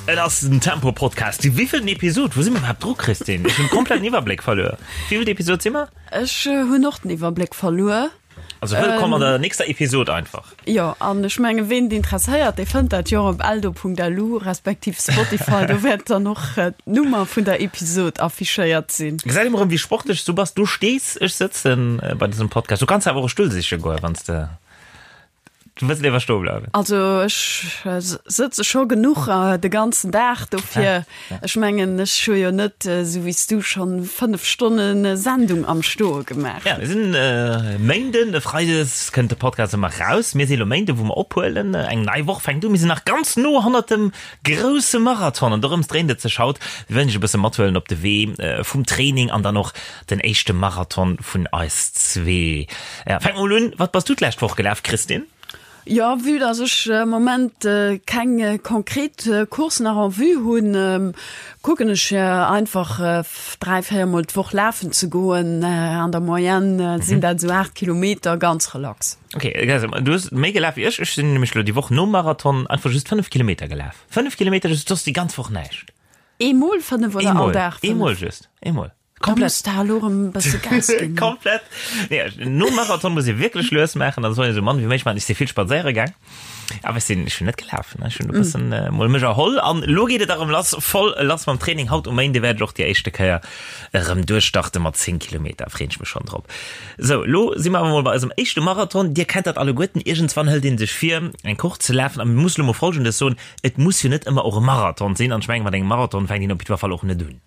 Et ass den Tempo Podcast. Déi wéivilten Episod? Wou si mer iwwerhaapt dru, Christine? Ech hunn komplett den Iwwerbléck verluer. Wéivilt Episod si mer? Ech hunn och den Iwwerbléck verluer. Also wëllkomm an der nächster Episod einfach. Jo, an ech menge ween et interesséiert, dee fënnt dat jo och op eldo.lu respektiv Spotify. Do wäert dann och d'Nummer vun der Episod affichéiert sinn. Gesäit emol erëm wéi sportlech s du bass. Du stees, ech sëtzen bei dësem Podcast. Du kanns awer och e Stull siche goen, wann s de Du wëlls léiwer stoe bleiwen? Also ech sëtze scho genuch de ganzen Dag, dofir ech mengen ech hu jo net esou wéi s du schonn 5 Stonne Sendung am Stoe gemaach. Ja, mir sinn Méinden, e Freides kënnt de Podcast ëmmer raus. Mir si lo Méinden, wou mer ophuelen. Eng nei Woch fänkt u. Mir sinn nach ganz no hannert dem grousse Marathon an dorëms dréint et sech haut. Mir wëllen iech e bësse mathuelen op de Wee vum Training an dann och Den éischte Marathon vun eis zwee. Ja, fänk mol un, wat bass du d'lescht Woch gelaf, Christine? Jo, vue dass ech am Moment keng konkret Course nach en vue hunn, kucken ech einfach 3, 4 mol d'Woch lafen ze goen. An der Moyenne sinn dat esou 8 Kilometer, ganz relax. Ok, du hues méi gelaf wéi ech. Ech sinn nämlech elo déi Woch nom Marathon einfach just 5 Kilometer gelaf. 5 Kilometer just, soss déi ganz Woch näischt. Eemol 5 oder all Dag 5? Eemol just, eemol. Komplett. Da lo rem bësse Gas ginn. Komplett. Nee, nom Marathon muss ee wierklech lues maachen, da soll een esou mann wéi méiglech maachen. Ech si vill spadséiere gaang, awer ech sinn, ech hunn net gelaf, ne. Ech hunn e bëssen mol mech erholl an elo geet et erëm lass, voll lass mam Training. Haut um Méinde wäert ech och déi éischte Kéier erëm duerchstarte mat 10 Kilometer, freeën ech mech schonn drop. Sou, elo si mer awer mol bei eisem éischte Marathon. Dir kennt dat alleguerten, iergendswann hëlt ee sech vir, eng Course ze lafen a mir musse lo mol Folgendes soen, Et muss jo net ëmmer och e Marathon sinn an ech mengen, mat engem Marathon fänkt een op jiddwer Fall och net un.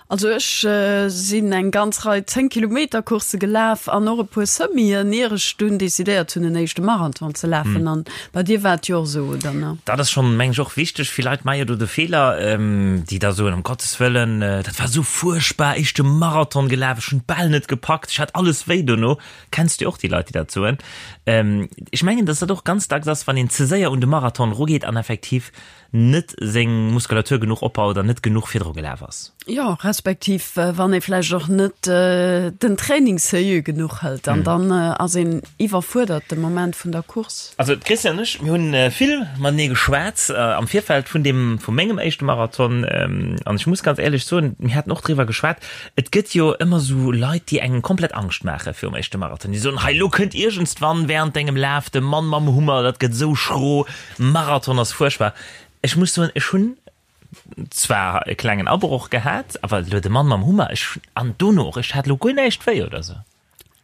Also ech sinn eng ganz Rei 10 Kilometer Coursse gelaf an och e puer Semien, ier ech dunn decidéiert hunn en éischte Marathon ze lafen. An bei dir war et jo och esou, oder ne? Dat ass schonn, meng ech, och wichteg. Vill Leit maache jo do de Feeler, déi da soen, ëm Gottes Wëllen, dat war esou fuerchtbar, éischte Marathon gelaf, ech hunn d'Bal net gepackt, ech hat alles wéi dono. Kenns du och déi Leit, déi dat soen? Ech mengen, datt dat och ganz dacks ass, wann een ze séier un de Marathon erugeet an effektiv net seng Muskulatur genuch opbaut an net genuch virdru gelaf ass. Jo, respektiv wann ee vläicht och net den Training sérieux genuch hëlt an dann ass een iwwerfuerdert de Moment vun der Course. Also d'Christiane an ech, mir hunn vill matenee geschwat am Virfeld vun deem, vu mengem éischte Marathon an ech muss ganz éierlech soen, mir haten och driwwer geschwat, et gëtt jo ëmmer esou Leit, déi engem komplett Angscht maache virum éischte Marathon, déi soen, hei elo kënnt iergendswann während dengem Laf de Mann mam Hummer, dat gëtt esou schro, Marathon ass fuerchtbar. Ech muss soen, ech hunn zwar e klengen Abroch gehat, awer elo de Mann mam Hummer, ech, an dono och, ech hat elo guer näischt wéi oder sou.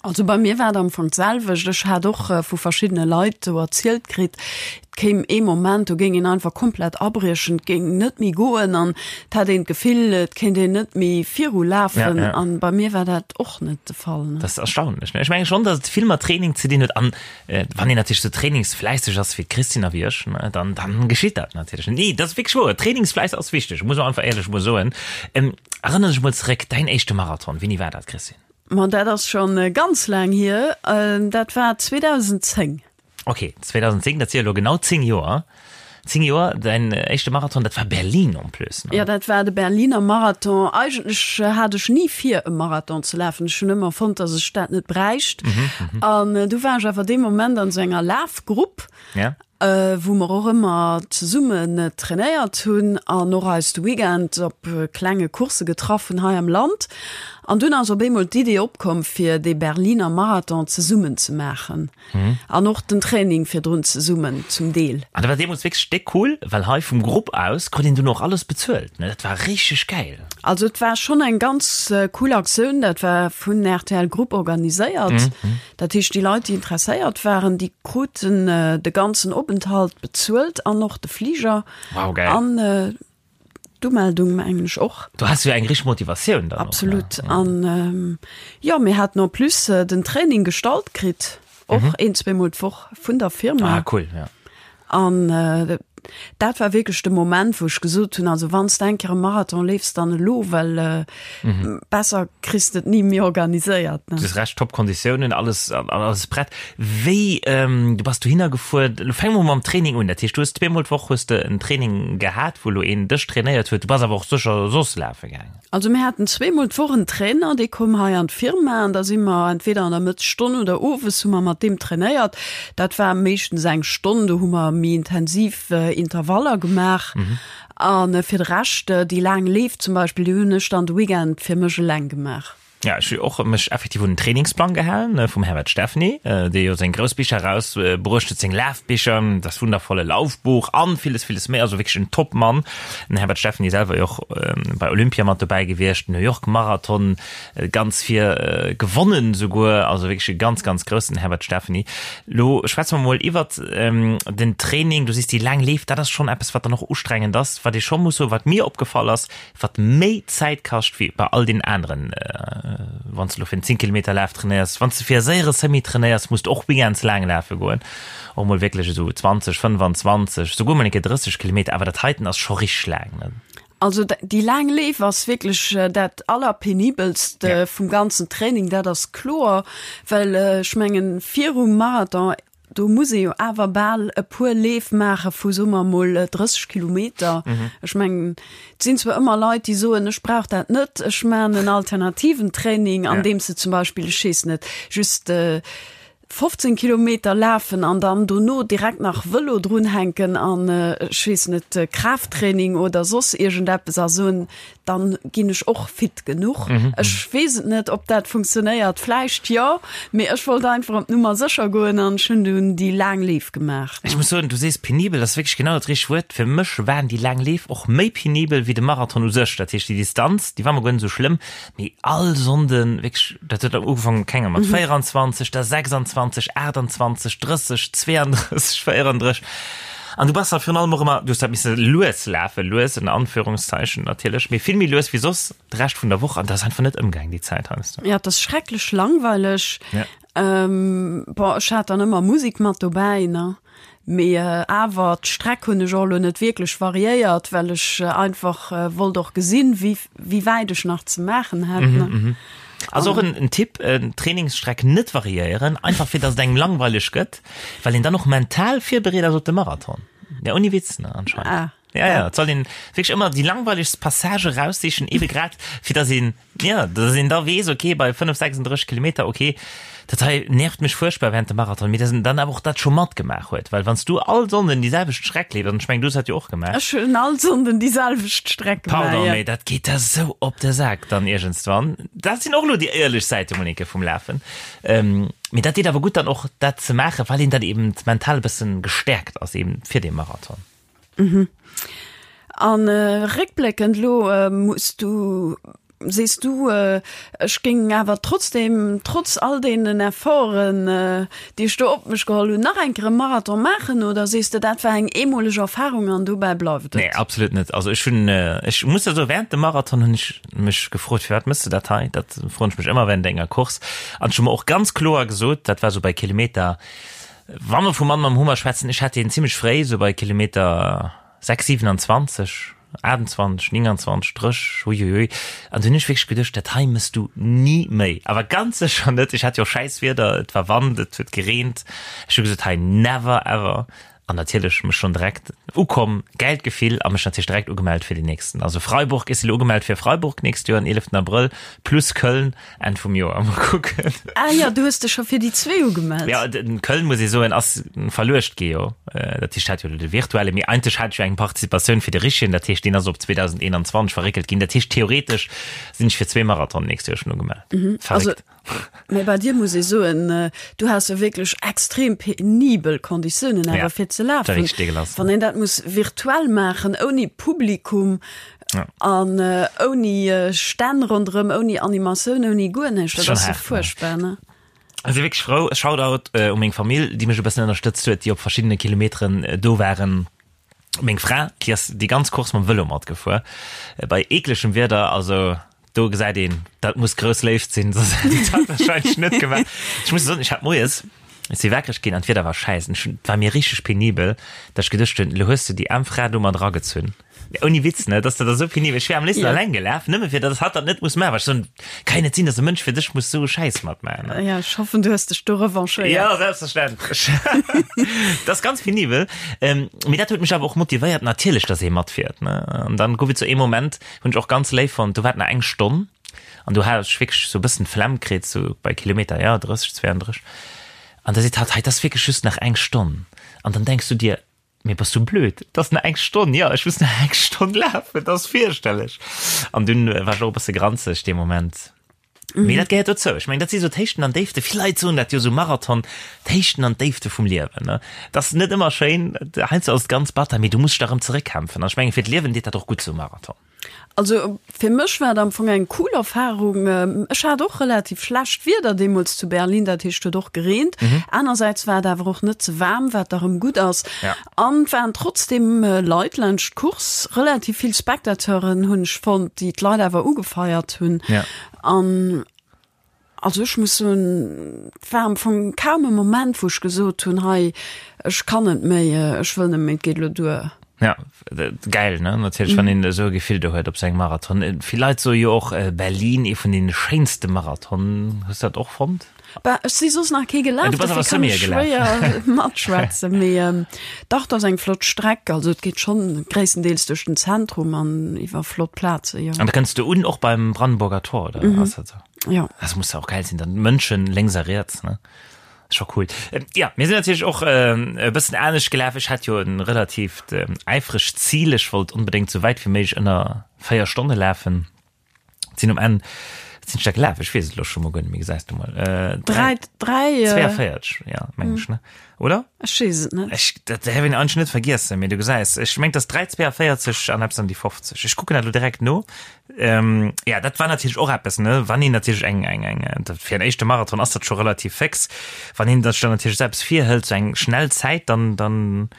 Also bei mir war et am Fong d'selwecht. Ech hat och vu verschiddene Leit sou erzielt kritt, et kéim ee Moment, do géing een einfach komplett abriechen, et géing net méi goen an et hätt een d'Gefill, et kéint een net méi virulafen. An bei mir war dat och net de Fall. Dat ass erstaunlech, ne? Ech menge schonn, datt et vill mat Training ze dinn huet an Wann een natierlech sou trainingsfläisseg ass wéi d'Christine a wéi ech, dann, dann geschitt dat natierlech. Nee, dat ass wierklech wouer. Trainingsfläiss ass wichteg, muss man einfach éierlech emol soen. Erënner dech emol zeréck, däin éischte Marathon, wéini war dat, Christine? Ma dat ass schonn ganz laang hier, dat war 2010. Ok, 2010, dat si jo elo genau 10 Joer. 10 Joer, däin éischte Marathon, dat war Berlin en plus, ne? Jo, dat war de Berliner Marathon. Eigentlech hat ech ni vir, e Marathon ze lafen. Ech hunn ëmmer fonnt, datt ech dat net bräicht. An du war ech awer dee Moment an esou enger Lafgrupp, wou mer och ëmmer zesummen trainéiert hunn an och eis de Weekend op klenge Coursse getraff hunn hei am Land. An dunn ass op eemol d'Idee opkomm, fir dee Berliner Marathon zesummen ze maachen. An och den Training virdrun zesummen zum Deel. An dat war deemools wierklech déck cool, well hei vum Grupp aus krut een dunn och alles bezuelt, ne? Dat war richteg gäil. Also et war schonn eng ganz cool Aktioun, dat war vun rtl Group organiséiert. Dat heescht déi Leit déi interesséiert waren, déi kruten de ganzen Openthalt bezuelt an och de Fliger. Wow, gäil. An D'Umeldung mengen ech och. Do has du jo eng richteg Motivatioun dann och, ne? Absolut. An jo, mir haten en plus den Training gestallt kritt, och een, zweemol d'Woch vun der Firma. Ah, cool, ja. An dat war wierklech de Moment, wou ech gesot hunn, also wann s de eng Kéier e Marathon leefs, dann elo, well besser kriss de et ni méi organiséiert, ne? Du hues Recht, top Konditiounen, alles, alles prett. Wéi, du bass dohinner gefuer, elo fänke mer mam Training un. Dat heescht, du hues zweemol d'Woch hues de en Training gehat, wou elo een dech trainéiert huet. Du bass awer och sécher soss lafe gaangen. Also mir haten zweemol d'Woch en Trainer, dee koum hei an d'Firma an da si mer entweder an der Mëttesstonn oder owes hu mer mat deem trainéiert. Dat war meeschtens eng Stonn, do hu mer méi intensiv Intervaller gemaach. A fir de Rescht, déi laang Leef zum Beispill, déi hunn ech dann de Weekend fir mech eleng gemaach. Ja, ech hu och mech effektiv un den Trainingsplang gehalen vum Herbert Steffny, dee jo seng grouss Bicher eraus bruecht huet, seng Lafbicher, Das wundervolle Laufbuch an villes, villes méi. Also wierklech en Top-Mann. Den Herbert Steffny selwer jo och bei Olympia mat dobäi gewiescht, New York Marathon ganz vir gewonnen souguer. Also wierklech e ganz, ganz groussen Herbert Steffny. Lo schwätze mer mol iwwert den Training. Du sees déi laang Leef, dat ass schonn eppes, wat dann och ustrengend ass, wat ee scho muss soen, wat mir opgefall ass, wat méi Zäit kascht wéi bei all den aneren, wann s de elo fir en 10 Kilometer Laf trainéiers, wann s de fir e séiere Semi trainéiers, muss de och méi ganz laang lafe goen, och mol wierklech esou 20, 25, souguer mol eng Kéier 30 Kilometer, awer dat heiten ass scho richteg laang, ne? Also déi laang Leef ass wierklech dat allerpenibelst vum ganzen Training, dat ass kloer, well ech mengen virum Marathon, Do muss ee jo awer bal e puer Leef maache vu, soe mer emol, 30 Kilometer. Ech mengen, et sinn zwar ëmmer Leit, déi soen, ech brauch dat net, ech maachen en alternativen Training, andeems se zum Beispill, ech weess net, just 15 Kilometer lafen an dann dono direkt nach Vëlo drunhänken an, ech weess net, Kraafttraining oder soss iergendeppes a soen, dann ginn ech och fit genuch. Mhm. Ech weess et net, ob dat funktionéiert, vläicht jo, mee ech wollt einfach op d'Nummer sécher goen an ech hunn dunn déi laang Leef gemaach. Ech muss soen, du sees penibel, dat ass wierklech genau dat richtegt Wuert. Fir mech waren déi laang Leef och méi penibel wéi de Marathon u sech. Dat heescht, déi Distanz, déi war mer guer net esou schlëmm, mee all Sonnden wierklech, dat huet ugefaangen, keng Ahnung, mat 24, da 26, 28, 30, 32, 34. An du bass da virun allem och ëmmer, du hues dat misse lues lafen, lues ënner Anführungszeichen natierlech, mee vill méi lues wéi soss de Rescht vun der Woch an dat ass einfach net ëmgaang déi Zäit heiansdo. Ja, et ass schrecklech langweileg. Ja. Ähm, bon, ech hat dann ëmmer Musek mat dobäi, ne? Mee awer d'Streck hunn ech och elo net wierklech variéiert, well ech einfach wollt och gesinn, wéi wéi wäit ech nach ze maachen hätt, ne? Mhm, mhm. Also och en, en Tipp, Trainingsstreck net variéieren, einfach fir dass et engem langweileg gëtt. Well een dann och mental virbereet ass op de Marathon. Ja, ouni Witz, ne, anscheinend. Ah. Ja, ja, et soll een wierklech ëmmer déi langweilegst Passage raussichen, ebe grad, fir dass een, ja, dass een da weess, okay, bei 5, 36 Kilometer, okay, dat hei nervt mech fuerchtbar während dem Marathon, mee dass een dann awer och dat scho matgemaach huet, well wann s du all Sonnden déi selwecht Streck leefs, an ech mengen, du hues dat jo och gemaach. Ech hunn all Sonnden déi selwecht Streck gemaach, Pardon, mee dat geet der sou op de Sak dann iergendswann. Dat sinn och elo déi éierlech Säite, Monique, vum Lafen. Mee dat deet awer gutt dann och dat ze maachen, well een dann eben mental e bëssen gestäerkt ass eben fir dee Marathon. Mhm. An réckbléckend elo muss du, sees du, ech géing awer trotzdem, trotz all deenen Efforten, déi ech do op mech geholl hunn, nach eng Kéier e Marathon maachen oder sees de, dat war eng eemoleg Erfarung an dobäi bleift et? Nee, absolut net. Also ech hunn, ech muss der soen, während dem Marathon hunn ech mech gefrot, firwat mëss de dat hei? Dat froen ech mech ëmmer während enger Course. An ech hu mer och ganz kloer gesot, dat war sou bei Kilometer, wa mer vu Mann mam Hummer schwätzen, ech hat deen zimmlech fréi, sou bei Kilometer 6, 27, 28, 29, 30, huihuihui. An du hunn ech wierklech geduecht, dat hei mëss du ni méi. Awer ganz sécher net. Ech hat jo och schäiss Wieder, et war Wand, et huet gereent. Ech hu gesot, hei never ever. An natierlech mech schonn direkt ukomm, gäilt Gefill a mech natierlech direkt ugemellt fir déi nächsten. Also Freiburg, ech si lo ugemellt fir Freiburg nächst Joer, den 11 Abrëll, plus Köln Enn vum Joer. Mol kucken. Ah jo, du hues dech scho fir déi zwee ugemellt. Jo, den Köln, muss ee soen, ass verluecht gi jo. Dat heescht, hat jo de virtuelle, mee eigentlech hat ech jo eng Participatioun fir de richtegen, dat heescht, deen ass op 2021 verréckelt ginn. Dat heescht, theoretesch sinn ech fir zwee Marathonen nächst Joer schonn ugemellt. Verréckt. Mee bei dir muss ee soen, du has jo wierklech extrem penibel Konditiounen awer fir ze lafen. Wann een dat muss virtuell maachen, ouni Publikum an ouni Stänn ronderëm, ouni Animatioun, ouni guer näischt, dat ass jo fuerchtbar, ne? Ech si wierklech frou. Shoutout u meng Famill, déi mech e bëssen ënnerstëtzt huet, déi op verschiddene Kilometeren do waren. Meng Fra, déi ass déi ganz Course mam Vëlo matgefuer, bei eeklegem Wieder, also do gesäit een, dat muss grouss Léift sinn, soss hätt ech dat wahrscheinlech net gemaach. Ech muss soen, ech hat moies, ech si wakereg ginn an d'Wieder war schäiss an ech hunn, et war mir richteg penibel, datt ech geduecht hunn, elo hues du déi aarm Fra do mat eragezunn. Ouni Witz, ne, dass dat esou penibel, ech wär am léifsten alleng gelaf, nëmme fir datt hatt dat net muss maachen, well ech soen, kann jo net sinn, datt e Mënsch fir dech muss esou e Schäiss matmaachen, ne. Ja, ech hoffen, du hues dech do revanchéiert. Ja, selbstverständlech. Dat ass ganz penibel. Mee dat huet mech awer och motivéiert, natierlech, datt ee matfiert, ne. An dann gouf et sou ee Moment, Hunn ech och ganz léif fonnt. Do war et nach eng Stonn an do hat ech wierklech sou e bëssen d'Flemm kritt, sou bei Kilometer, ja, 30, 32. An da seet hatt, hei, et ass wierklech just nach eng Stonn. An dann denks du dir, Mee bass du blöd? Et ass nach eng Stonn, jo, ech muss nach eng Stonn lafen, dat ass fierchterlech. An dunn war ech och e bësse granzeg dee Moment. Mee dat gehéiert dozou. Ech mengen, dat si sou d'Héichten an Déifte. Vill Leit soen dat jo, sou Marathon, d'Héichten an d'Déifte vum Liewen, ne? Et ass net ëmmer schéin, heiansdo ass et ganz batter, mee du muss dech da erëm zeréckkämpfen. An ech mengen, fir d'Liewen deet dat och gutt, sou e Marathon. Also fir mech war et am Fong eng cool Erfarung. Ech hat och relativ schlecht Wieder deemools zu Berlin, dat heescht huet och gereent. Anersäits war et awer och net ze waarm, wat da rëm gutt ass. An et waren trotzdeem Leit laanscht d'Course, relativ vill Spectateuren hunn ech fonnt, déi d'Leit awer ugefeiert hunn. An Also ech muss soen, et war am Fong kaum e Moment, wou ech gesot hunn, hei, ech kann net méi, ech wëll net méi, et geet elo duer. Ja, gäil, ne? Natierlech, wann een esou e Gefill do huet op sou engem Marathon. Vill Leit soe jo och, Berlin, ee vun deene schéinste Marathonen. Hues du dat och fonnt? Bah, ech si soss nach kee gelaf, Du bass awer dofir kann Semi ech gelaf. schwéier matschwätzen. Mee dach, et ass eng flott Streck. Also et geet schonn gréisstendeels duerch den Zentrum an iwwer flott Plaze, jo. An da kënns du un och beim Brandenburger Tor, oder ass dat sou? Ja. Das muss ja auch geil sinn, dann Mënschen lénks a riets, ne? Ist scho cool. Ähm, ja, mir sinn natierlech och ähm, e bëssen anescht gelaf. Ech hat jo en relatiivt ähm, äifregt Zil. Ech wollt onbedéngt sou wäit wéi méiglech ënner 4 Stonne lafen. Sinn um Enn, wat sinn ech da gelaf? Ech weess et elo scho mol guer net méi, gesäis du mol. Äh, 3, 3, äh, 42, ja, meng ech, ne? Oder? Ech weess et net. Ech, dat däerf een eigentlech net vergiessen, mee du gesäis, ech mengt, dass 3,42 an eppes an déi 50. Ech kucken dat elo direkt no. Ähm, ja, dat war natierlech och eppes, ne? Wann een natierlech eng, eng, eng, dat fir en éischte Marathon ass dat scho relativ féx. Wann een sech dann natierlech selbst virhëlt, sou eng schnell Zäit, dann, dann,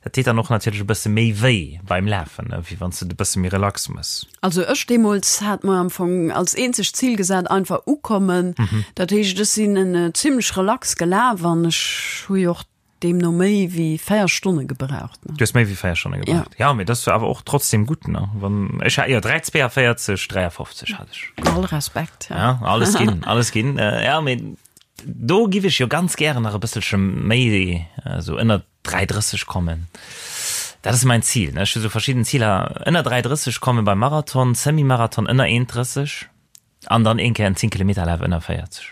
dat deet dann och natierlech e bësse méi wéi beim Lafen, ne? Wéi wann s de et e bësse méi relax mëss. Also ech deemools hat mer am Fong als eenzegt Zil gesat, einfach ukommen. Dat heescht, ech sinn en zimmlech relax gelaf an ech hu jo och deemno méi wéi 4 Stonne gebraucht. Du hues méi wéi 4 Stonne gebraucht? Ja. Ja, mee dat ass jo awer och trotzdem gutt, ne? Wann ech hat jo 3,42, 53 hat ech. All Respekt, ja. Ja, alles ginn, alles ginn. Ja, mee do giff ech jo ganz gären nach e bësselche méi, esou ënnert 3,30 kommen. Dat ass mäin Zil, ne? Ech hu sou verschidden Ziler, ënner 3,30 komme beim Marathon, Semi-Marathon ënner 1,30 an dann een Kéier en 10 Kilometer Laf ënner 40.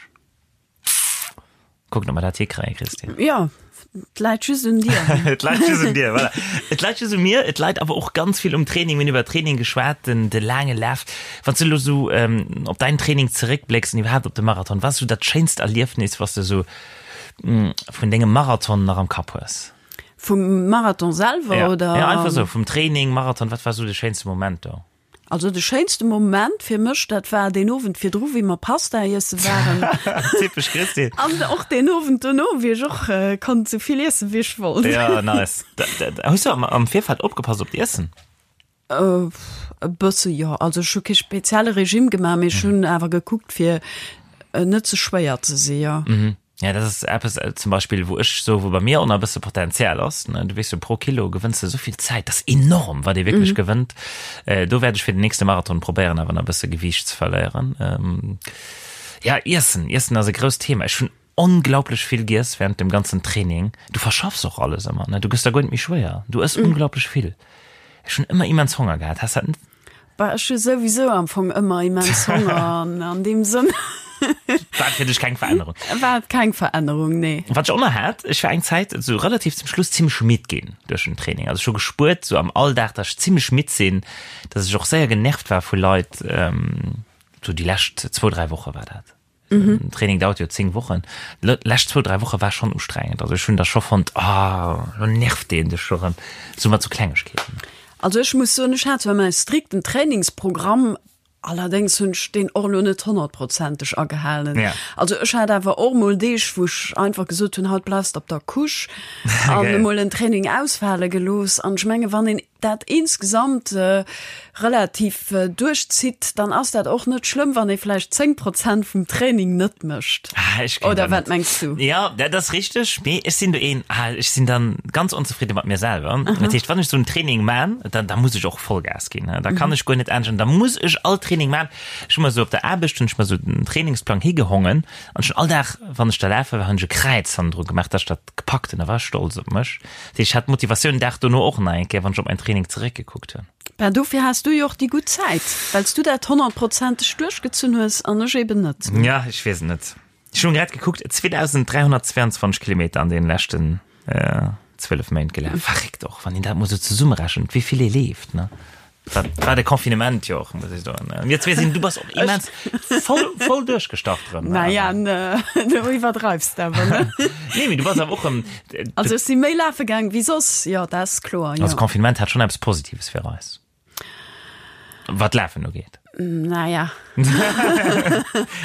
Kucken, ob mer dat hikréien, Christine. Jo, et läit just un dir. Et läit just un dir, voilà. Et läit just un mir, et läit awer och ganz vill um Training. Mir hunn iwwer Training geschwat, den, de laange Laf. Wann s du elo sou op däin Training zeréckblécks an iwwerhaapt op de Marathon, wat ass sou dat schéinst Erliefnis, wat s de sou vun dengem Marathon nach am Kapp hues? Vum Marathon selwer ja. oder? Ja, einfach sou vum Training, Marathon, wat war sou de schéinste Moment do? Also de schéinste Moment fir mech, dat war deen Owend virdru, wéi mer Pasta iesse waren. Typesch Christine. An och deen Owend dono, wéi ech och konnt sou vill iessen, wéi ech wollt. Ja, nice. Hues du am, am Virfeld opgepasst op d'Iessen? E bësse jo. Also ech hu kee spezielle Regime gemaach, mee ech hunn awer gekuckt fir net ze schwéier ze si jo. Mhm. Ja, dat ass eppes zum Beispill, wou ech soe wou bei mir och nach e bësse Potenzial ass, ne. Du weess jo, pro Kilo gewënns de esou vill Zäit, dat ass enorm, wat ee wierklech gewënnt. Do wäert ech fir den nächste Marathon probéieren, awer nach e bësse Gewiicht ze verléieren. Ja, Iessen, Iessen ass e grousst Thema. Ech hunn Onglaublech vill giess während dem ganzen Training. Du verschaffs och alles ëmmer, ne? Du gëss da guer net méi schwéier. Du ëss unglaublech vill. Ech hunn ëmmer immens Honger gehat. Has dat net? Bah, ech hu souwisou am Fong ëmmer immens Honger an an deem Sënn. War et fir dech keng Verännerung? War et keng Verännerung, nee. Wat ech och nach hat, ech war eng Zäit esou relativ zum Schluss zimmlech midd ginn duerch den Training. Also ech hu gespuert esou am Alldag, dass ech zimmlech midd sinn, dass ech och séier genervt war vu Leit. Esou déi lescht zwou, dräi Woche war dat. Mhm. Training dauert jo 10 Wochen. Lescht zwou, dräi Woche war schon ustrengend. Also ech hunn da scho fonnt, ah, lo nervt deen dech scho rëm. Sou mat sou Klengegkeeten. Also ech muss soen, ech hat zwar mäi strikten Trainingsprogramm, allerdéngs hunn ech deen och elo net honnertprozenteg agehalen. Ja. Also ech hat awer och mol Deeg, wou ech einfach gesot hunn, haut bleifs de op der Couche an emol en Training ausfale gelooss. An ech menge wann een dat insgesamt relativ duerchzitt, dann ass dat och net schlëmm, wann ee vläicht 10 Prozent vum Training net mécht. Ah, ech kenn Oder dat wat net. mengs du? Ja, dat ass richteg, mee ech sinn do een, ah, ech sinn dann ganz onzefridde mat mir selwer. Dat heescht, wann ech sou en Training man, dann, da muss ech och Vollgas ginn. Da kann ech guer net anescht an da muss ech all Training man. Ech hu mer sou op der Aarbecht hunn ech mer sou den Trainingsplang higehongen an ech hunn all Dag, wann ech da lafe war, hunn ech e Kräiz hannendru gemaach, dass ech dat gepackt hunn. Da war ech stolz op mech. Dat heescht, ech hat d'Motivatioun den Dag dono och nach eng Kéier, wann ech op mäin Training zeréckgekuckt hunn. Ben, dofir has du jo och déi gutt Zäit, well s du dat honnertprozenteg duerchgezunn hues an ech eben net. Ja, ech weess et net. Ech hunn grad gekuckt, 2322 Kilometer an deenen leschten. 12 Méint gelaf. Verréckt och, wann een dat mol sou zesummerechent, wéi vill ee leeft, ne? Dat war de Confinement jo och, muss ech soen. Mir zwee sinn, du bass och immens voll, voll duerchgestart erëm. Naja, du iwwerdreifs awer, ne? Nee, mee du bass awer och erëm. Also ech si méi lafe gaang wéi soss, jo, dat ass kloer, jo. Also Confinement hat schonn eppes Positives fir eis. Wat Lafen ugeet. Naja.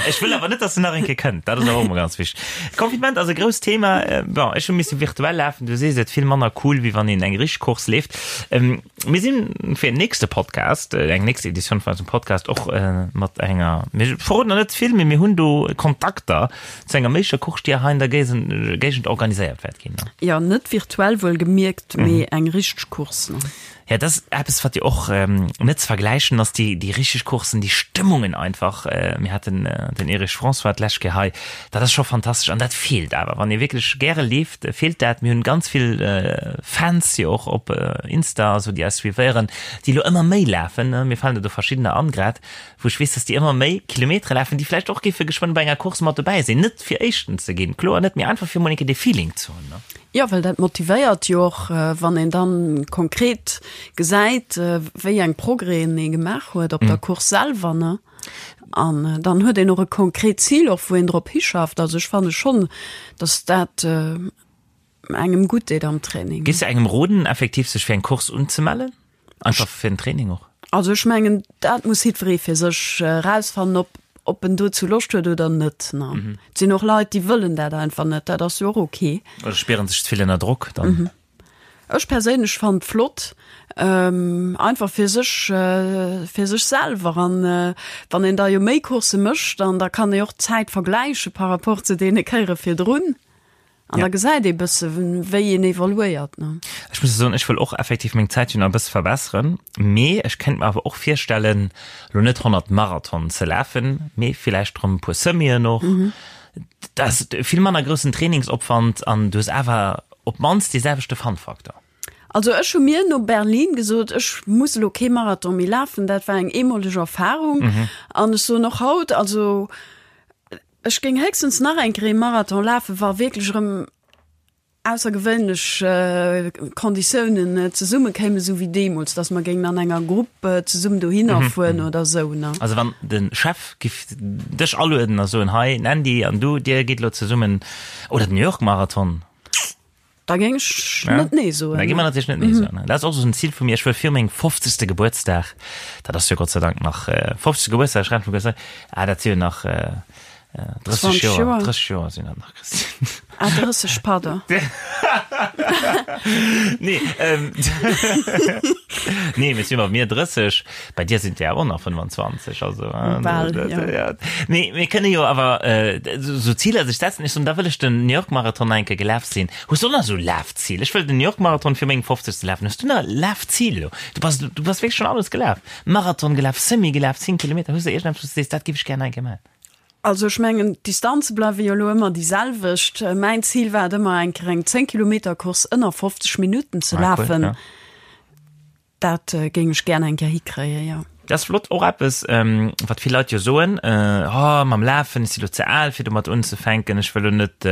Ech wëll awer net, dass en nach eng Kéier kënnt. Dat ass awer och emol ganz wichteg. Confinement ass e grousst Thema. Bon, ech hu misse virtuell lafen. Du sees et, vill manner cool, wéi wann een eng richteg Course leeft. Mir sinn fir en nächste Podcast, eng nächst Editioun vun eisem Podcast och mat enger, mir verroden nach net ze vill, mee mir hunn do Kontakter zu enger méiglecher Course, déi hei an der Géigend organiséiert wäert ginn. Jo, net virtuell wuelgemierkt, mee eng richteg Course. Ja, dat ass eppes, wat jo och net ze vergläichen ass, déi, déi richteg Coursen, déi Stëmmungen einfach. Mir haten den Erich François d'lescht Kéier hei, dat ass scho fantastesch an dat feelt awer. Wann ee wierklech gäre leeft, feelt dat. Mir hunn ganz vill Fans jo och op Insta a sou, déi eis suivéieren, déi elo ëmmer méi lafen. Mir falen der do verschiddener an grad, wou ech weess, dass déi ëmmer méi Kilometere lafen, déi vläicht och géife geschwënn bei enger Course mat dobäi sinn. Net fir Éischten ze ginn, kloer net, mee einfach fir emol eng Kéier dee Feeling ze hunn. Jo, well dat motivéiert jo och, wann een dann konkret gesäit, wéi eng Progrèsen ee gemaach huet op der Course selwer, ne? An dann huet een och e konkret Zil och, wou een drop hischafft. Also ech fanne schonn, datt dat engem gutt deet am Training. Géifs de engem roden, effektiv sech fir eng Course unzemellen? Einfach fir den Training och? Also ech mengen, dat muss jiddweree fir sech erausfannen, ob, ob en dozou Loscht huet oder net. Ne? Mhm. Et sinn och Leit, déi wëllen dat einfach net, dat ass jo och ok. Oder spieren sech ze vill ënner Drock dann. Mhm. Ech perséinlech fannen et flott, ähm, einfach fir sech, äh, fir sech selwer. An äh, wann een da jo méi Coursse mécht, dann da kann ee och d'Zäit vergläiche par rapport zu deene Kéiere virdrun. An da gesäit ee bësse wéi een evoluéiert. Ech muss soen, ech wëll och effektiv meng Zäit jo nach e bësse verbesseren, mee ech kéint mer awer och virstellen, elo net 100 Marathonen ze lafen, mee villäicht erëm e puer Semien och. Dat ass vill manner groussen Trainingsopwand an du hues awer op d'mannst dee selwechte Fun-Faktor. Also ech hu mir no Berlin gesot, ech muss elo kee Marathon méi lafen, dat war eng eemoleg Erfarung. An ech soen och haut, also Ech géing héchstens nach eng Kéier ee Marathon lafen, wa wierklech erëm aussergewéinlech Konditiounen zesumme kéimen, esou wéi deemools, datt mer géingen an enger Grupp zesummen dohinner fueren oder esou, ne. Also wann de Chef giff dech alueden a soen, hei Andy an du, dir gitt elo zesummen, oder den New York Marathon. Da géing ech net nee soen. Da gi mer natierlech net nee soen. Dat ass och esou en Zil vu mir. Ech wëll fir mengem 50. Gebuertsdag, dat ass jo Gott sei Dank nach, 50. Gebuertsdag, ech rechnen vum Gebuertsdag, ah dat si jo nach 30 Joer, 30 Joer sinn dat nach, Christine. Ah 30, pardon. Nee, nee, mee si bei mir 30, bei dir sinn et der awer och nach 25, also. Bal, jo. Nee, mir kënne jo awer esou Ziler sech setzen. Ech soen, da wëll ech den New York Marathon nach eng Kéier gelaf sinn. Hues du och nach esou Lafzil? Ech wëll den New York Marathon fir mengem 50. lafen. Hues du nach Lafzil elo? Du bass, du bass wierklech schonn alles gelaf. Marathon gelaf, Semi gelaf, 10 Kilometer. Hues du iergendeppes, wou s du sees, dat géif ech gär nach eng Kéier maachen? Also ech mengen, d'Distanze bleiwe jo elo ëmmer déi selwecht. Mäin Zil war et ëmmer, eng Kéier eng 10 Kilometer Course ënner 50 Minutten ze Ah, cool, lafen. ja. Dat géing ech gär eng Kéier hikréien, jo. Dat ass flott. Och eppes, wat vill Leit jo soen, Oh, mam Lafen, ech si lo ze al, fir domat unzefänken, ech wëll lo net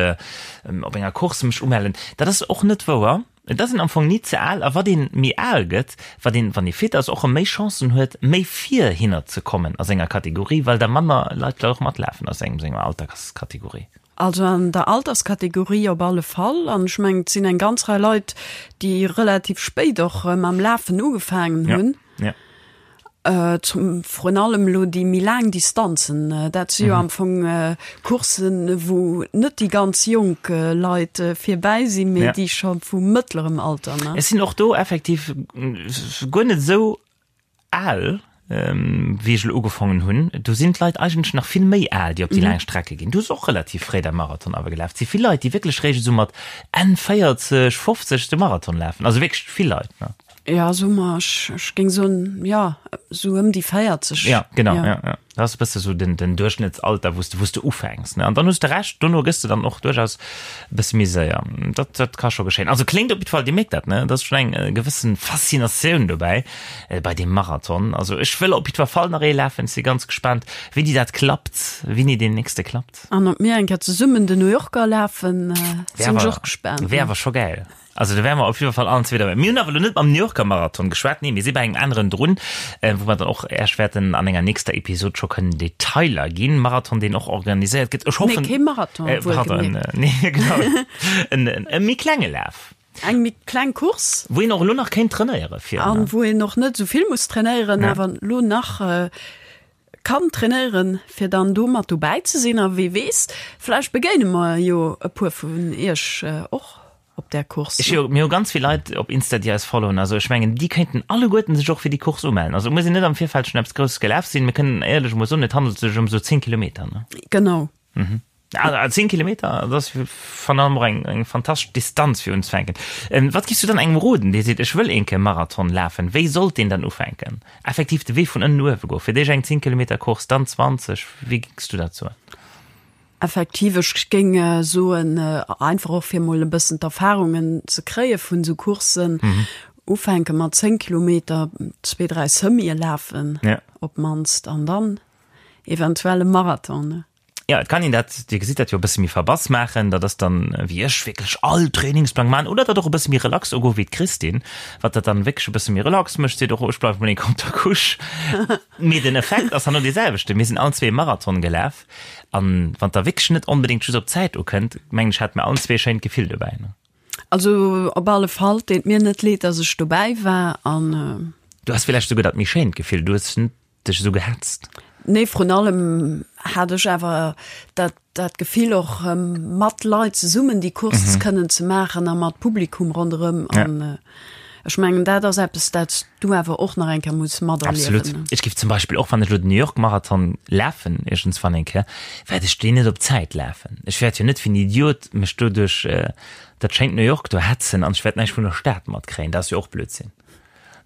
op enger Course mech umellen. Dat ass och net wouer. Et ass een am Fong ni ze al. A wat ee méi al gëtt, wat een, wann ee fit ass, och erëm méi Chancen huet, méi vir hinner ze kommen a senger Kategorie, well da manner Leit vläicht och matlafen aus engem senger Alterskategorie. Also an der Alterskategorie op alle Fall. An ech mengen, et sinn eng ganz Rei Leit, déi relativ spéit och mam Lafen ugefaangen hunn. Ja, ja. Zum, vrun allem elo déi méi laang Distanzen. Dat si jo am Fong Courssen, wou net déi ganz jonk Leit virbäi sinn, mee déi scho vu mëttlerem Alter, ne? Ech sinn och do effektiv guer net esou Al, wéi ech elo ugefongen hunn, do sinn d'Leit eigentlech nach vill méi al, déi op déi laang Strecke ginn. Du hues och relativ fréi däi Marathon awer gelaf. Et si vill Leit, déi wierklech réischt esou mat Enn 40, 50 de Marathon lafen. Also wierklech vill Leit, ne? Jo, soe mer, ech géing soen, jo, esou ëm déi 40. Ja, genau, ja, ja. Dat ass e bësse sou den, den Duerchschnëttsalter, wou s de, wou s de ufänks, ne? An dann hues de Recht, dono gëss de dann och duerchaus e bësse méi séier. Dat, dat ka scho geschéien. Also kléngt op jiddwer Fall, Dir mierkt dat, ne? Et ass schonn eng gewëssen Faszinatioun dobäi, bei deem Marathon. Also ech wëll op jiddwer Fall nach ee lafen. Ech si ganz gespaant, wéini dat klappt, wéini deen nächste klappt. An ob mir eng Kéier zesummen den New Yorker lafen, sinn ech och gespaant. Wär awer scho gäil. Also do wäre mer op jidder Fall allen zwee derbäi. Mir hunn awer elo net mam New Yorker Marathon geschwat, nee, mir si bei engem aneren drun, wou mer dann och Äech wäerten an enger nächster Episod scho kënnen Detailer ginn. Marathon, deen och organiséiert gëtt. Ech hoffen. Nee, kee Marathon, wuel pardon, gemierkt. Nee, genau. En, en, e méi klenge Laf. Eng méi kleng Course. Wou een och elo nach kéint trainéiere fir. An wou een och net esou vill muss trainéieren, awer elo nach kann trainéieren, fir dann do mat dobäi ze sinn. A wee weess, vläicht begéine mer jo e puer vun iech och op där Course. Ech jo, mir hu ganz vill Leit op Insta, déi eis followen. Also ech mengen, déi kéinten alleguerten sech och fir déi Course umellen. Also et muss een net am Virfeld schonn eppes Grousses gelaf sinn. Mir kënnen éierlech emol soen, et handelt sech ëm esou 10 Kilometer, ne? Genau. Mhm. Also 10 Kilometer, dat ass virun allem och eng, eng fantastesch Distanz fir unzefänken. Wat giffs du dann engem roden, dee seet, ech wëll een Kéier Marathon lafen? Wéi sollt deen dann ufänken? Effektiv de Wee vun ënnen no uewe goen, fir d'éischt eng 10 Kilometer Course, dann 20, wéi géings du dat soen? Effektiv, ech géing soen, einfach och fir mol e bëssen d'Erfahrungen ze kréie vun esou Courssen, ufänke mat 10 Kilometer, zwee, dräi Semië lafen op d'mannst an dann eventuell e Marathon. Jo, et kann een dat, Dir gesitt dat jo, e bësse méi verbass maachen. Dat ass dann, wéi ech, wierklech all Trainingsplang maachen oder dat och e bësse méi relax ugoen, wéi d'Christine, wat dat dann wierklech e bësse méi relax mécht, seet och, ech bleiwe mol eng Kéier op der Couche. Mee den Effekt ass herno dee selwechten. Mir sinn allen zwee e Marathon gelaf an wann et da wierklech net onbedéngt just op d'Zäit ukënnt, mengen ech, hate mir allen zwee e schéint Gefill dobäi, ne? Also op alle Fall, et deet mir net leed, dass ech dobäi war an. Du has villäicht souguer dat méi schéint Gefill, du hues net dech esou gehetzt? Nee, vrun allem hat ech awer dat, dat Gefill och mat Leit zesummen déi Course mhm. kënnen ze maachen a mat Publikum ronderëm. Ja. An äh, ech mengen dat ass eppes, dat s du awer och nach eng Kéier muss materliewen. Absolut. Ech géif zum Beispill och wann ech lo den New York Marathon lafen iergendswann eng Kéier, wäert ech deen net op Zäit lafen. Ech wäert jo net wéi en Idiot mech do duerch äh, dat schéint New York do hetzen an ech wäert näischt vun der Stad matkréien. Dat ass jo och Blödsinn.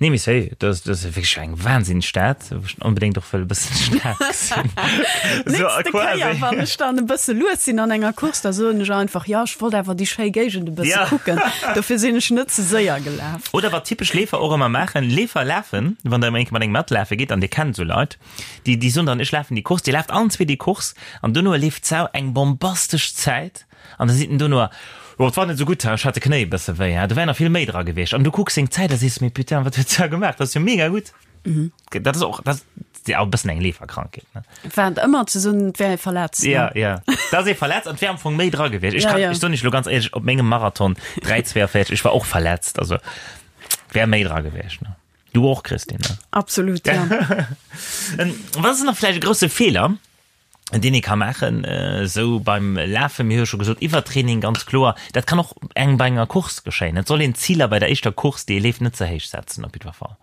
Nee, mee sérieux, dat ass, dat ass wierklech eng wahnsinneg Stad, wou ech onbedéngt och wëll e bëssen d'Stad gesinn. So, Nächste quasi. Kéier, wann ech dann e bësse lues sinn an enger Course, da soen ech einfach, jo, ech wollt awer déi schéi Géigend e bësse Ja. kucken, dofir sinn ech net ze séier gelaf. Oder wat typesch Leefer och ëmmer maachen, Leefer lafen, wann der ëmmer eng Kéier mat engem matlafe gitt, an dir kennt esou Leit, déi, déi soen dann, ech lafen déi Course, dir laaft allen zwee déi Course, an dono leeft d'Sau eng bombastesch Zäit, An da seet en dono, Jo, et war net esou gutt, ech hat de Knéi e bësse wéi, do wär nach vill méi dra gewiescht. An du kucks seng Zäit a sees, Mee putain, wat huet d'Sau gemaach, dat ass jo mega gutt. Dat ass och, dat ass jo e bëssen eng Leeferkrankheet, ne? War et ëmmer ze soen, et wär ee verletzt, ne? Ja, ja, da ass ee verletzt an et wär am Fong méi dra gewiescht. Ech kann, ech soen iech elo ganz éierlech, op mengem Marathon 3,42, ech war och verletzt, also wär méi dra gewiescht, ne? Du och, Christine, ne? Absolut, ja. Wat ass nach vläicht e grousse Feeler, deen ee ka maachen, esou beim Lafen, mir hu jo scho gesot, Iwwertraining, ganz kloer, dat kann och engem bei enger Course geschéien. Et soll een d'Ziler bei der éischter Course, déi ee leeft, net ze héich setzen op jiddwer Fall.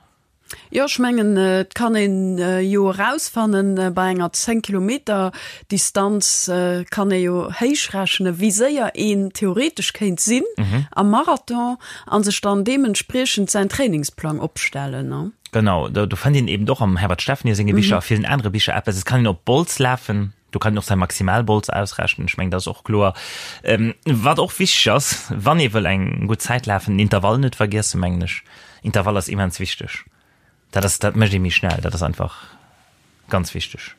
Jo, ech mengen, et kann een jo erausfannen, bei enger 10 Kilometer Distanz kann ee jo héich rechnen, wéi séier een theoretesch kéint sinn am Marathon a sech dann deementspriechend säin Trainingsplang opstellen. Genau, do, do fënnt een eben och am Herbert Steffny senge Bicher a villen anere Bicher eppes. Et kann een op Bols lafen, do kann een och säi Maximalbols ausrechnen, ech mengen, dat ass och kloer. Ähm, wat och wichteg ass, wann ee wëll eng gutt Zäit lafen, den Intervall net vergiessen, mengen ech. Intervall ass immens wichteg. Dat ass, dat mécht ee méi schnell, dat ass einfach ganz wichteg.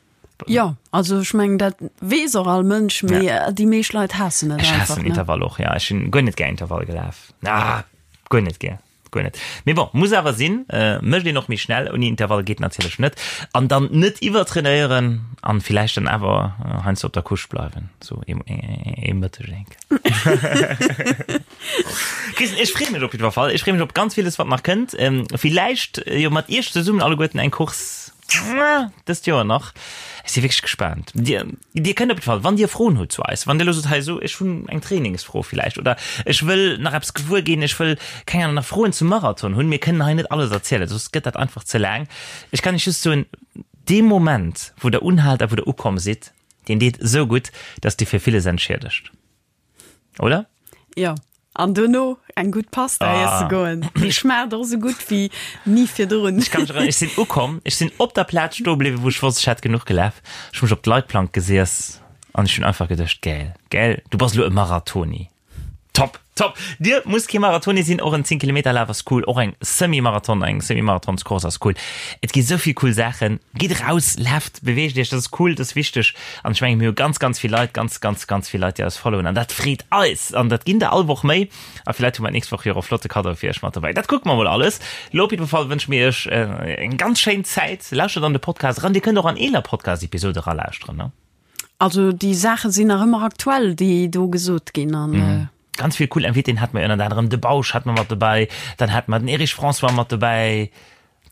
Jo, also ech mengen, dat weess och all Mënsch, mee ja. déi meescht Leit haassen et einfach. Ech haassen Intervall och, ja. Ech hunn guer net gär Intervall gelaf. Ah, guer net gär. Guer net. Mee bon, muss awer sinn, mécht een och méi schnell. Ouni Intervall geet natierlech net. An dann net iwwertrainéieren an villäicht dann awer heiansdo op der Couche bleiwen, sou ee Mëtteg enk. Christine, ech freeë mech op jiddwer Fall. Ech freeë mech op ganz villes, wat nach kënnt. Villäicht jo mat iech zesummen alleguerten eng Course dëst Joer nach. Ech si wierklech gespaant. Dir, dir kënnt op jidde Fall, wann Dir Froen hutt zu eis, wann Dir elo sot, hei esou, ech hunn eng Trainingsfro villäicht oder ech wëll nach eppes gewuer ginn, ech wëll, keng Ahnung, nach Froen zum Marathon hunn, mir kënnen hei net alles erzielen, soss gëtt dat einfach ze laang. Ech kann Iech just soen, dee Moment, wou Der unhaalt a wou Der ukomm sidd, deen deet esou gutt, dass Dir fir villes entschiedegt. Oder? Jo. An dono eng gutt Pasta iesse goen. Déi schmaacht och esou gutt wéi ni virdrun. Ech ka mech erënneren, ech sinn ukomm, ech sinn op der Plaz stoe bliwwen, wou ech wosst, ech hätt genuch gelaf. Ech hu mech op d'Leitplank gesiess an ech hunn einfach geduecht, Gäil, gäil, du bass elo e Marathoni. Top, top! Dir musst kee Marathoni sinn, och en 10 Kilometer Laf ass cool, och eng Semi-Marathon, eng Semi-Marathonscourse ass cool. Et gi sou vill cool Saachen. Gitt eraus, laaft, beweegt iech, dat ass cool, dat ass wichteg. An ech mengen, mir hu ganz, ganz vill Leit, ganz, ganz, ganz vill Leit, déi eis followen an dat freet eis. An dat ginn der all Woch méi. A villäit hu mer d'nächst Woch jo och e flotte Kaddo fir iech mat dobäi. Dat kucke mer mol alles. Lo op jidde Fall wënsche mir iech eng ganz schéin Zäit. Lauschtert an de Podcast eran. Dir kënnt och an eeler Podcast-Episode eralauschteren, ne? Also déi Saache sinn nach ëmmer aktuell, déi do gesot ginn. An mhm. Ganz vill cool Invitéen hat mer ënnert anerem de Bausch hat mer mat dobäi, dann hat mer den Erich François mat dobäi,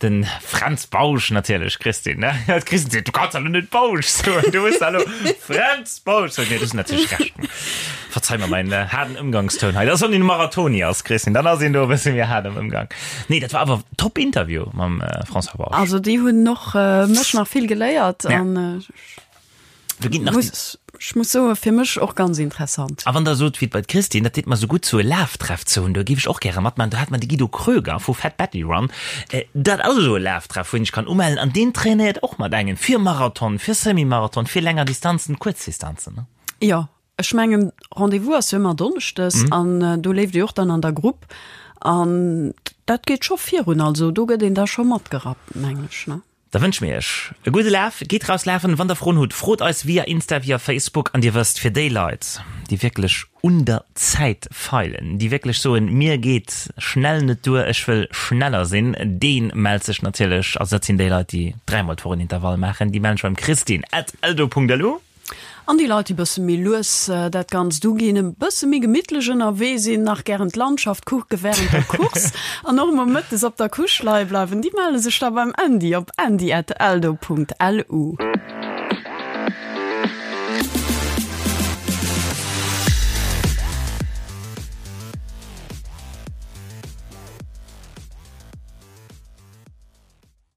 den Fränz Bausch natierlech, Christine, ne? D'Christine seet, du kanns awer net Bausch soen, du muss elo Fränz Bausch soen. Nee, du hues natierlech Recht. Verzeih mer mäin haarden Ëmgangstoun hei. Dat ass, wann een Marathoni ass, Christine, dann ass een do e bësse méi haart am Ëmgang. Nee, dat war awer top Interview mam François Bausch. Also déi hunn och mech nach vill geléiert an Do ginn nach muss, ech muss soen, fir mech och ganz interessant. A wann der sot, wéi bei d'Christine, dat deet mer sou gutt, sou e Laftreff ze hunn, do géif ech och gäre matmaachen. Do hat mer de Guido Kröger vu Fat Betty Run, dat ass esou e Laftreff, wou een sech kann umellen an deen trainéiert och mat engem fir Marathon, fir Semi-Marathon, fir länger Distanzen, kuerz Distanzen, ne? Jo, ech mengen Rendez-vous ass jo ëmmer donneschdes an do leeft ee och dann an der Grupp an dat geet scho virun, also do gëtt een da scho matgerappt, mengen ech, ne? Da wënsche mir iech e gudde Laf. Gitt raus lafen. Wann der Froen hutt, frot eis via Insta, via Facebook. An dir wësst, fir déi Leit, déi wierklech un der Zäit feilen, déi wierklech soen, mir geet schnell net duer, ech wëll schneller sinn, dee mellt sech natierlech, also dat sinn déi Leit, déi dräimol d'Woch en Intervall maachen, déi mellen sech beim Christine at eldo.lu. An déi Leit, déi bësse méi lues dat Ganzt uginn, e bësse méi gemittlech ënnerwee sinn, nach gären d'Landschaft kucke wärend der Course an och emol mëttes op der Couche leie bleiwen, déi melle sech da beim Andy op andy@eldo.lu.